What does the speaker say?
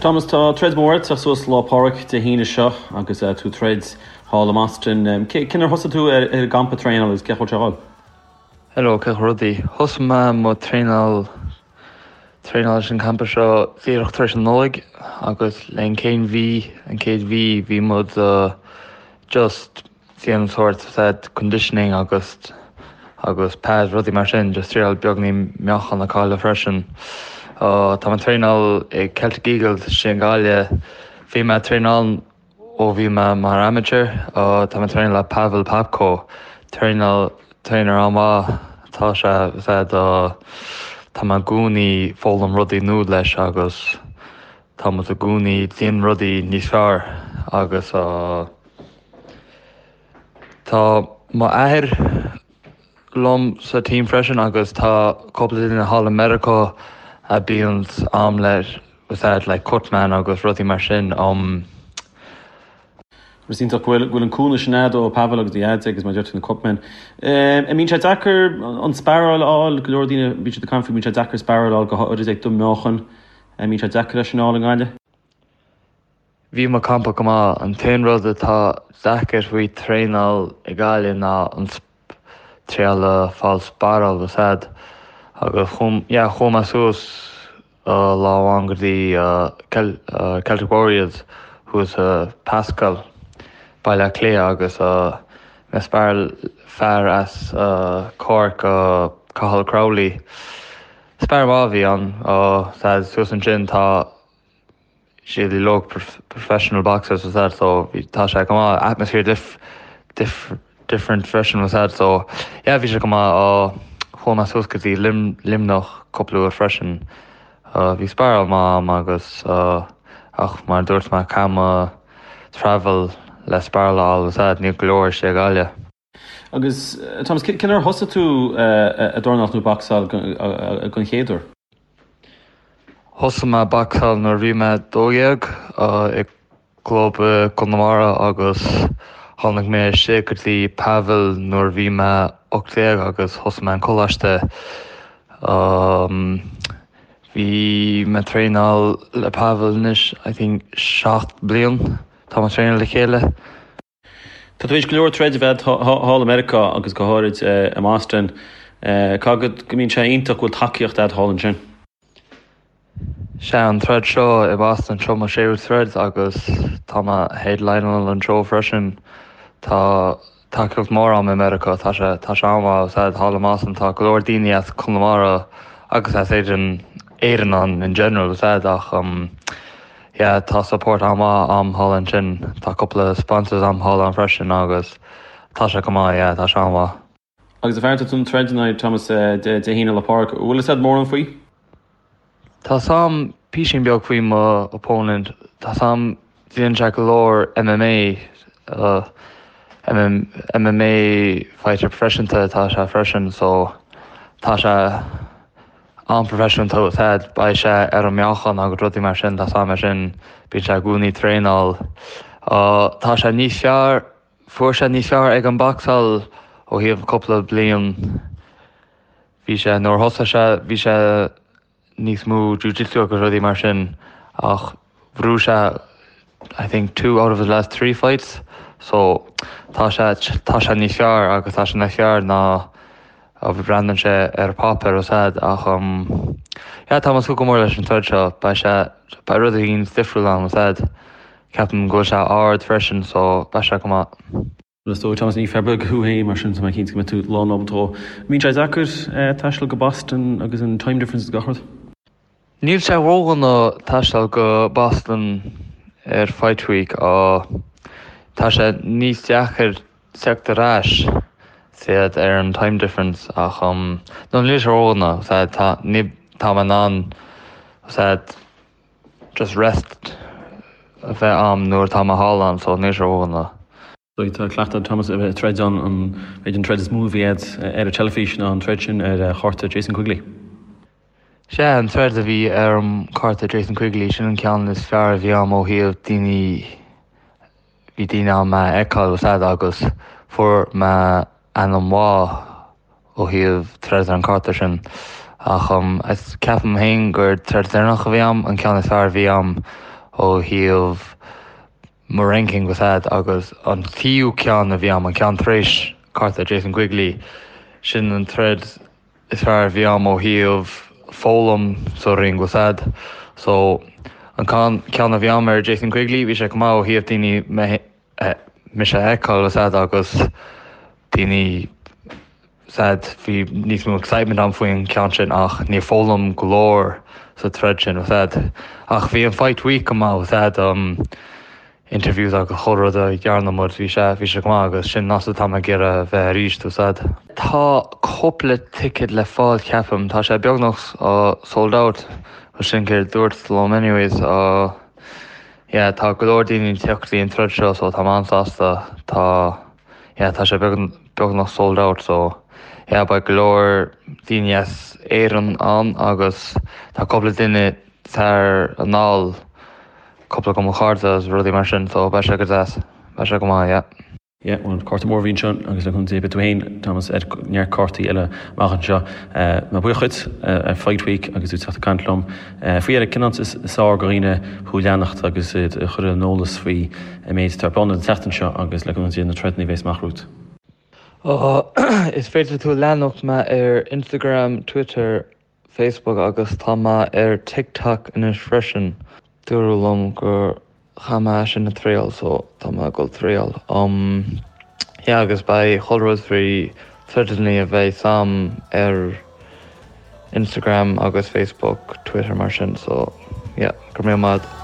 Thomas, tá troid mór ag teacht suas Lá Pádraig Dé hAoine seo agus tú ag troid thall i mBoston. Cén uair a thosaigh tú ar an gcampa traenála agus cén chaoi a bhfuil sé ag dul? Hello, cén chaoi rudaí? Thosaigh mé mo traenáil traenáil leis an campa seo díreach tar éis an Nollaig agus le an chéad mhí, an chéad mhí bhí muid just déanamh sórt said conditioning agus agus pads rudaí mar sin just triail beagní meáchan a chailleadh freisin. Tá mé ag traenáil ag Celtic Eagles istigh i nGaillimh. Bhí mé ag traenáil ó bhí mé mar amateur. Tá mé ag traenáil le Pavel Popko. Traenáil trainer an-mhaith atá sé said tá mé i gcónaí foghlaim rudaí nua leis agus tá muid i gcónaí déanamh rudaí níos fearr agus Tá m'athair liom sa team freisin agus tá cúpla duine thall i Meiriceá a bíonn am le said like cutman agus rudaí mar sin. Um. Is iontach go bhfuil go bhfuil an cúnamh sin agat ó Pavel agus do dhaid agus mar a deir tú na cutmen. An mbíonn sé deacair an sparáil a fháil, go leor daoine bíonn siad ag caint faoi bíonn sé deacair sparáil a fháil go háirid ag do mheáchan. An mbíonn sé deacair é sin a fháil i nGaillimh? Bhí mo campa go maith. An t-aon rud atá deacair faoi traenáil i Gaillimh ná an triail a fáil sparáil the said agus yeah chuaigh mé suas lá amháin go dtí Celtic Warriors thuas i Pascal, Baile Átha Cliath agus mé sparáil fear as Cork Cathal Crowley. Spar maith a bhí ann said suas ansin tá siad uilig professional boxers was that so bhí tá sé go maith atmosphere dif dif different freisin was that so yeah bhí sé go maith uh, chuaigh mé suas go dtí Lim Luimneach cúpla uair freisin uh, bhí sparáil maith a'm agus uh, ach mar dúirt mé caithfidh mé travel le sparáil a fháil was that níl go leor istigh i Gaillimh. Agus Thomas, cén uair a thosaigh tú ag dornálaíocht nó bacsáil don chéad uair? Thosaigh mé bacsáil nuair a bhí mé 12 i gclub i gConamara agus tháinig mé istigh go dtí Pavel nuair a bhí mé 18 agus thosaigh mé an coláiste. Bhí mé ag traenáil le Pavel anois I think 7 bliain tá mé ag traenáil le chéile. Tá tú tar éis go leor troid a bheith thall i Meiriceá agus go háirid i mBoston. Caithfidh go mbíonn sé iontach go bhfuil tacaíocht agat thall ansin. Sea, an troid seo i Boston, seo mo séú troid agus tá mé headlineáil an seó freisin. Tá tacaíocht mór a'm i Meiriceá, tá sé tá sé an-mhaith sea thall i mBoston, tá go leor daoine as Conamara agus as Éirinn Éirinn ann in general sea ach Yeah tá support an-mhaith a'm thall ansin, tá cúpla sponsors a'm thall ann freisin agus tá sé go maith, yeah tá sé an-mhaith. Agus a fear tá tú ag troid in aghaidh Thomas Dé hAoine Lá Pádraig, bhfuil fhios a'd mórán faoi? Tá 's a'm písín beag faoi mo opponent, tá 's a'm déanann sé go leor MMA, MMA fighter proifisiúnta atá sé freisin so tá sé an-proifisiúnta said beidh sé ar an meáchan agus rudaí mar sin tá 's a'm é sin bíonn sé i gcónaí ag traenáil. Tá sé níos fearr fuair sé níos fearr ag an bacsáil ó thaobh cúpla bliain bhí sé nuair a thosaigh sé bhí sé níos mó jiu-jitsu agus rudaí mar sin ach bhuaigh sé I think two out of his last three fights so tá sé tá sé níos fearr agus tá sé níos fearr ná a bhreathnaíonn sé ar páipéar is ea ach um yeah tá mé ag súil go mór leis an troid seo beidh sé beidh rud éigin difriúil ann is ea ceapaim go bhfuil sé ard freisin so beidh sé go maith. Is dóigh, Thomas, ní fear beag thú féin, mar sin tá mé cinnte go mbeidh tú lán ábalta dhó. An mbíonn sé deacair taisteal go Boston agus an time difference is gach rud? Níl sé ródhona taisteal go Boston ar Fight Week. Tá sé níos deacair teacht ar ais said ar an time difference ach no níl sé ródhona said tá ní tá mé in ann said just rest a bheith a'm nuair atá mé thall ann so níl sé ródhona. Tá cleachtadh ag Thomas a bheith ag troid ann, an b'fhéidir an troid is mó a bhí agat ar an teilifís ná an troid sin ar chárta Jason Quigley. Sea, an troid a bhí ar an chárta Jason Quigley, sin an ceann is fearr a bhí a'm ó thaobh daoine, bhí daoine ann mé a fheiceáil was that agus fuair mé ainm mhaith ó thaobh troid ar an cárta sin ach ceapaim féin gur troid deireanach a bhí a'm, an ceann is fearr a bhí a'm. ó thaobh mo ranking bhfuil a fhios a'd agus an tríú ceann a bhí a'm, an ceann tar éis cárta Jason Quigley, sin an troid is fearr a bhí a'm ó thaobh foghlaim sa ring bhfuil a fhios a'd. So an ceann a bhí a'm ar Jason Quigley bhí sé go maith ó thaobh daoine me mise a fheiceáil bhfuil a fhios a'd agus daoine bhfuil a fhios a'd bhí níos mó excitement a'm faoin ceann sin ach níor foghlaim go leor sa troid sin bhfuil a fhios a'd. Ach bhí an fight week go maith bhfuil a fhios a'd um interviews agus chuile rud a dhearna muid bhí sé bhí sé go maith agus sin an áit atá mé ag iarraidh a bheith arís bhfuil a fhios a'd. Tá cúpla ticket le fáil ceapaim, tá sé beagnach uh, sold out sin céard dúirt liom anyways uh, yeah tá go leor daoine ag teacht go dtí an troid seo so tá mé an-sásta tá yeah tá sé beagnach sold out so yeah beidh go leor daoine as Éirinn ann agus tá cúpla duine thar anall cúpla de mo chairde agus rudaí mar sin so beidh sé go deas beidh sé go maith yeah. Yeah, bhuel, cárta mór a bhí anseo agus le cúnamh Dé beidh tú féin, Thomas, ar neart cártaí eile amach anseo. Tá mé buíoch dhuit ar Fight Week agus tú teacht ag caint liom. Faoi dheireadh, cén áit is fearr do dhaoine thú a leanacht agus iad a chur ar an eolas faoi an méid atá ar bun an tseachtain seo agus le cúnamh Dé na troideanna a bheas amach romhat? Is féidir tú leanacht mé ar Instagram, Twitter, Facebook agus tá mé ar TikTok anois freisin. Dúradh liom gur chaith mé sin a triail so tá mé ag dul triail. Um yeah agus beidh chuile rud faoi troideanna a bheidh a'm ar Instagram agus Facebook, Twitter mar sin so yeah go raibh míle maith.